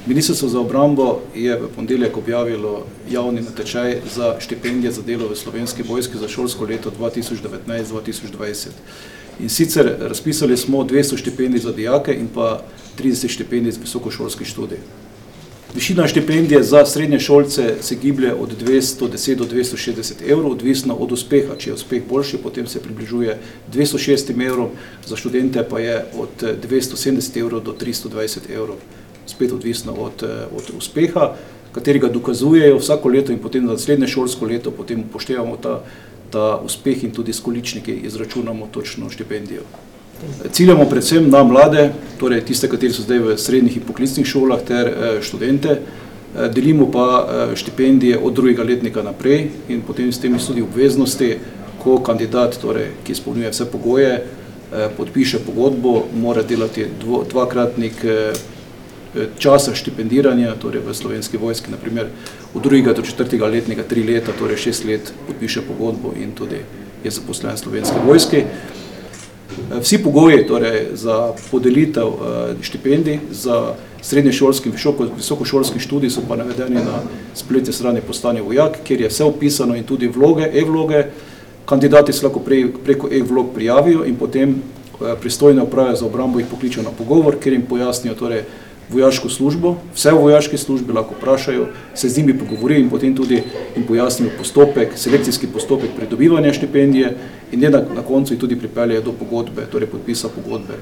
Ministrstvo za obrambo je v ponedeljek objavilo javni natečaj za štipendije za delo v Slovenski vojski za šolsko leto 2019-2020. In sicer razpisali smo 200 štipendij za dijake in pa 30 štipendij za visokošolski študij. Višina štipendije za srednje šolce se giblje od 210 do 260 evrov, odvisno od uspeha. Če je uspeh boljši, potem se približuje 206 evrom, za študente pa je od 270 evrov do 320 evrov. Spet odvisno od uspeha, katerega dokazujejo vsako leto in potem za naslednje šolsko leto potem upoštevamo ta uspeh in tudi s količniki izračunamo točno štipendijo. Ciljamo predvsem na mlade, torej tiste, kateri so zdaj v srednjih in poklicnih šolah ter študente, delimo pa štipendije od drugega letnika naprej in potem s tem tudi obveznosti, ko kandidat, torej, ki izpolnjuje vse pogoje, podpiše pogodbo, mora delati dvakratnik časa štipendiranja, torej v Slovenski vojski, naprimer od drugega do četrtega letnika 3 leta, torej 6 let podpiše pogodbo in tudi je zaposlen v Slovenski vojski. Vsi pogoji torej, za podelitev štipendij za srednješolski in visokošolski študij so pa navedeni na spletni strani Postani vojak, kjer je vse opisano in tudi vloge, e-vloge. Kandidati se lahko preko e-vlog prijavijo in potem pristojne uprave za obrambo jih pokličejo na pogovor, kjer jim pojasnijo torej, vojaško službo, vse v vojaški službi lahko vprašajo, se z njimi pogovorijo in potem tudi jim pojasnijo postopek, selekcijski postopek pridobivanja štipendije in na koncu jih tudi pripeljejo do pogodbe, torej podpisa pogodbe.